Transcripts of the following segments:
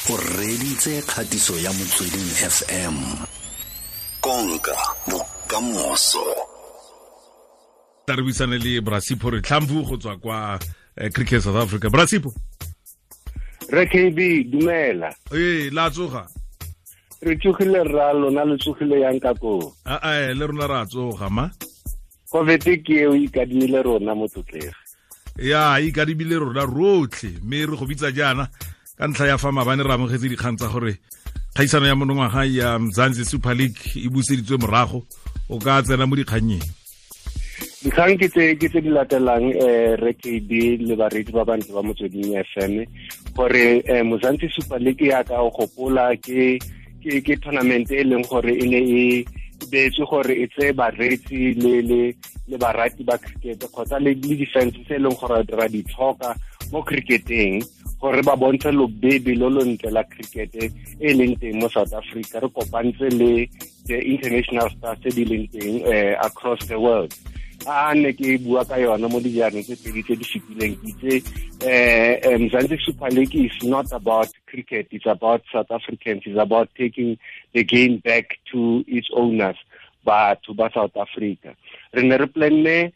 O reditse kgatiso ya Motsweding FM. Konka bokamoso. Tla re buisane le Brasipho re tlhamfu go tswa kwa Cricket South Africa. Brasipho. Re KB, dumela. Ee, la tsoga. Re tsogile rra, lona le tsogile yang ka koo? A le rona ra tsoga ma. COVID ke eo ikadimile rona motlotlegi. Ya, ikadimile rona rotlhe, mme re go bitsa jaana ka ntlha ya fa maabane re amogetse dikgang tsa gore kgaisano ya monongwaga ya Mzansi Super League e buseditswe morago. O ka tsena mo dikgannyeng? Dikgang ke tse di latelang, re KB le bareetsi ba bantle ba Motsweding FM, gore Mzansi Super League ya ka o gopola ke tournament e leng gore e ne e beetswe gore e tseye bareetsi le barati ba cricket kgotsa le di-fans tse e leng gore ra di tlhoka mo cricketeng, gore ba bontshe lobebe lo lo ntle la cricket e leng teng mo South Africa. Re kopantse le the international stars tse di leng teng across the world. A ne ke bua ka yona mo dijareng tse pedi tse di fetileng, ke itse Mzansi Super League is not about cricket, it's about South Africans, it's about taking the game back to its owners, batho ba South Africa. Re ne re planne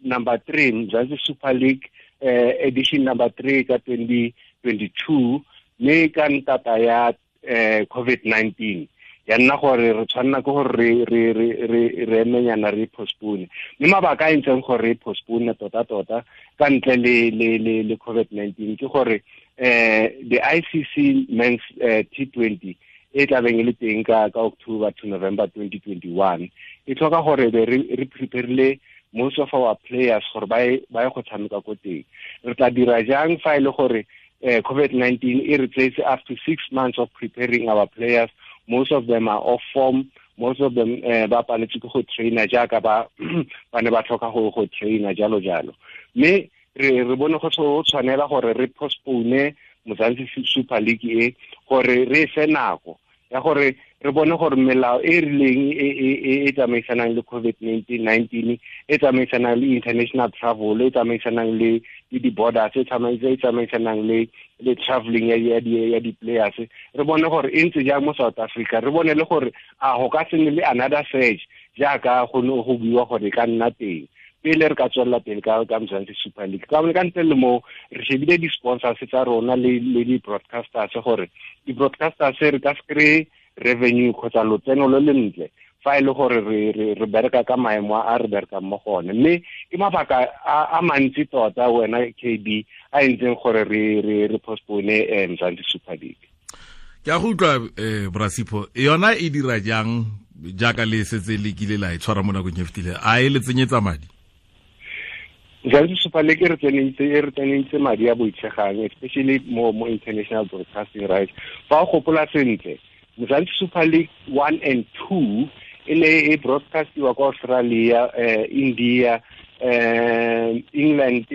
number 3 Mzansi Super League edition number 3 ka 2022, mme ka ntata ya COVID-19 ya nna gore re tshwanela ke gore re emenyana re postpone. Mme mabaka a entseng gore re postpone tota-tota ka ntle le COVID-19 ke gore the ICC Men's T20 e tlabeng e le teng ka October to November 2021 e tlhoka gore be re preparile most of our players gore ba ye go tshameka ko teng. Re tla dira jang fa e le gore COVID-19 e re tseetse up to 6 months of preparing our players? Most of them are off form, most of them ba paletse ke go traina jaaka ba ne ba tlhoka go traina jalo jalo. Mme re bone go tshwanela gore re postpone Mzansi Super League e gore re fe nako ya gore re bone gore melao e rileng e tsamaisanang le COVID-19 e tsamaisanang le international travel, e tsamaisanang le di-borders, e tsamaisanang le traveling ya di-players, re bone gore e ntse jang mo South Africa. Re bone le gore a go ka se nne le another surge jaaka go ne go buiwa gore e ka nna teng pele re ka tswelela pele ka Mzansi Super League. Ka ntle le mo re shebile di-sponsors tsa rona le di-broadcasters, gore di-broadcasters re ka se kry-e revenue kgotsa lotseno lo le ntle fa e le gore re bereka ka maemo a re berekang mo go one. Mme ke mabaka a mantsi tota wena KB a entseng gore re postpone Mzansi Super League. Ke a go utlwa, Brasipho, yona e dira jang jaaka le setse le kile la e tshwara mo nakong e fetileng? A e le tsenyetsa madi? Mzansi Super League e re tsenentse madi a boitshegang, especially mo international broadcasting rights. Fa o gopola sentle, Mzansi Super League 1 and 2 e ne e broadcastiwa kwa Australia, India, England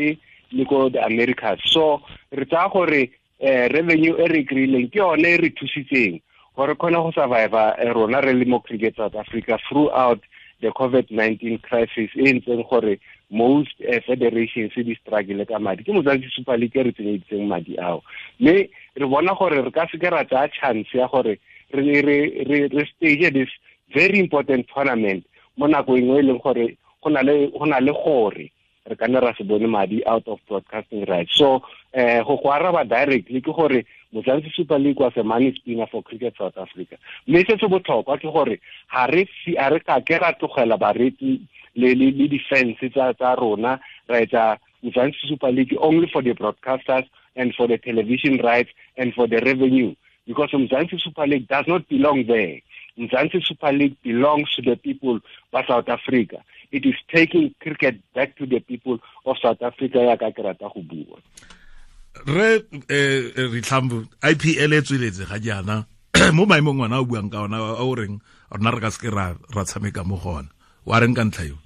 le ko the Americas. So re tsaya gore revenue e re kry-ileng ke yone e re thusitseng gore kgone go survive rona re le mo Cricket South Africa throughout the COVID-19 crisis e ntseng gore most federations di struggle ka madi. Ke Mzansi Super League e re tsenyeditseng madi ao. Mme re bona gore re ka seke ra tsaya chance ya gore re stage this very important tournament mo nako engwe e leng gore go na le gore re ka nne ra se bone madi out of broadcasting rights. So go araba directly ke gore Mzansi Super League was a money spinner for Cricket South Africa. Mme se se botlhokwa ke gore ga re ka ke ra tlogela bareetsi le di-fans tsa rona, ra etsa Mzansi Super League only for the broadcasters and for the television rights and for the revenue, because Mzansi Super League does not belong there. Mzansi Super League belongs to the people of South Africa. It is taking cricket back to the people of South Africa ya ka ke rata go bua. Re Ritlhambu, IPL e tsweletse ga jaana mo maemong ngwana o buang ka ona a o reng rona re ka seke ra tshameka mo go ona, wa reng ka ntlha eo?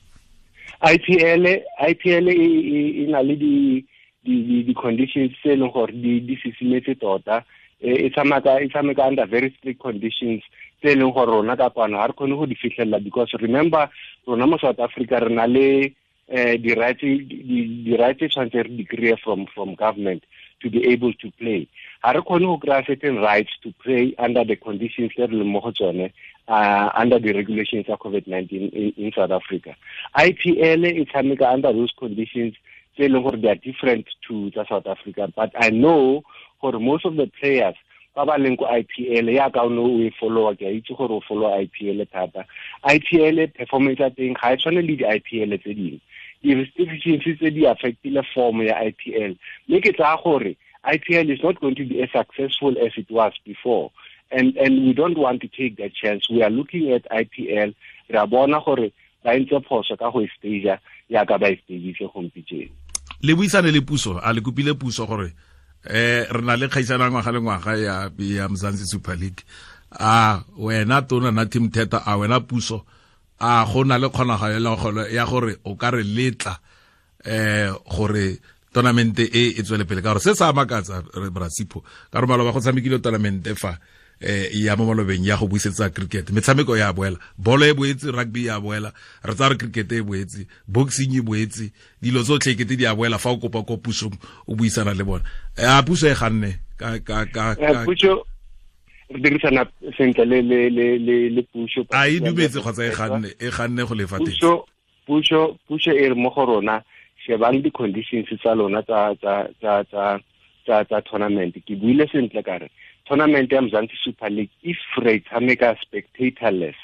IPL e na le di conditions tse e leng gore di sisimetse tota. E tshameka under very strict conditions tse e leng gore rona ka kwano ga re kgone go di fitlhelela, because remember rona mo South Africa re na le di-rights tshwanetse re di kry-e from government. to be able to play. Ga re kgone go kry-a certain rights to play under the conditions tse re leng mo go tsone, under the regulations of COVID-19 in South Africa. IPL e tshameka under those conditions tse e leng gore they are different to tsa South Africa, but I know gore most of the players ba ba leng ko IPL, yaka o ne o e followa, ke a itse gore o follow IPL thata. IPL performance ya teng ga e tshwane le di-IPL tse dingwe. Di-restrictions tse di affectile form ya IPL, mme ke tsaya gore IPL is not going to be as successful as it was before, and we don't want to take that chance. We are looking at IPL, re a bona gore ba entse phoso ka go e stage yaka ba e stagitse gompieno. Le buisane le puso, a le kopile puso gore re na le kgaisano ngwaga le ngwaga ya Mzansi Super League, a wena tona Nathi Mthethwa, a wena puso, a go na le kgonagalo ya gore o ka re letla gore tournament e e tswele pele, ka gore se sa makatsa re Brasipho ka re maloba go tshamekile tournament fa ya mo malobeng ya go buisetsa cricket, metshameko ya boela, bolo e boetse, rugby ya boela, re tsaya re cricket e boetse, boxing e boetse, dilo tsotlhe kete di a boela fa o kopa ko pusong o buisana le bona. A puso e ganne ka puso re dirisana sentle le puso, a e dumetse kgotsa e ganne go lefa teng. Puso e re mo go rona, shebang di-conditions tsa lona tsa tournament. Ke buile sentle ka re tournament ya Mzansi Super League, if re tshameka spectatorless,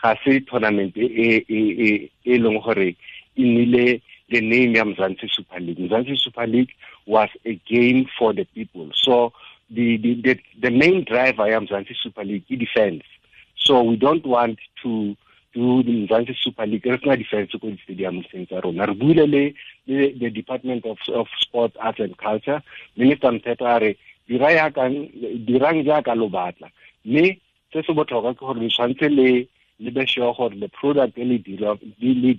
ga se tournament e leng gore e nnile the name ya Mzansi Super League. Mzansi Super League was a game for the people. So the main driver ya Mzansi Super League is defense. So we don't want to do the Mzansi Super League. Re sena defense ko di-stadium tsa rona. Re buile le the Department of Sport, Arts and Culture. Minister Mthethwa a re dirang jaaka lo batla, mme se se botlhokwa ke gore le tshwanetse le be sure gore the product e le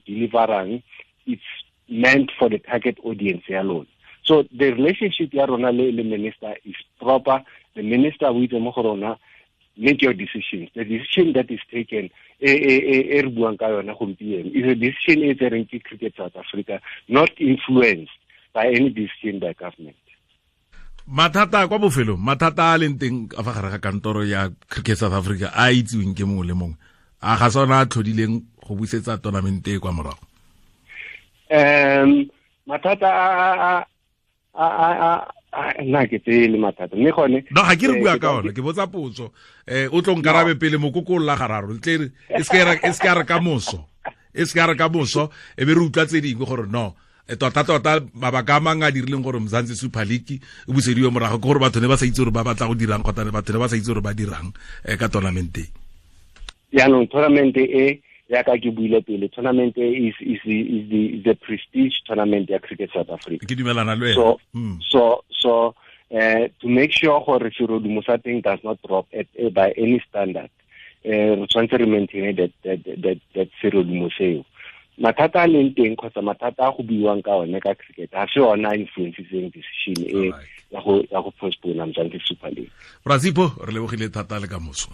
deliverang it's meant for the target audience ya lona. So the relationship ya rona le minister is proper. The minister o itse mo go rona, make your decisions. The decision that is taken e re buang ka yona gompieno is a decision e tsereng ke Cricket South Africa, not influenced by any decision by government. Mathata kwa bofelong, mathata a leng teng ka fa gare ga kantoro ya Cricket South Africa a itsiweng ke mongwe le mongwe, a ga sona a tlhodileng go busetsa tournament e kwa morago? Mathata a nna ke tsele mathata, mme gone no ga ke re bua ka ona, ke botsa potso. O tlo nkarabe pele mokoko la gararo tle e se ka re ka moso, e se ka re ka moso e be re utlwa tse dingwe gore no tota mabaka a mangwe a dirileng gore Mzansi Super League e busediwe morago ke gore batho ne ba sa itse gore ba batla go dirang kgotsa batho ne ba sa itse gore ba dirang ka tournament e. Jaanong tournament e, yaka ke buile pele, tournament e is the prestige tournament ya Cricket South Africa. Ke dumelana le wena. So to make sure gore serodumo sa teng does not drop by any standard, re tshwanetse re maintain that serodumo seo. Mathata a leng teng kgotsa mathata a go buiwang ka one ka cricket ga se ona a influencitseng decision e ya go postpone Mzansi Super League. Brasipho, re lebogile thata le ka moso.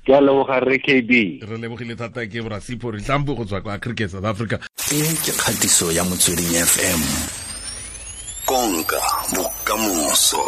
Ke a leboga re KB. Re lebogile thata ke Brasipho Rihlambu go tswa kwa Cricket South Africa. E ke kgatiso ya Motsweding FM. Konka bokamoso.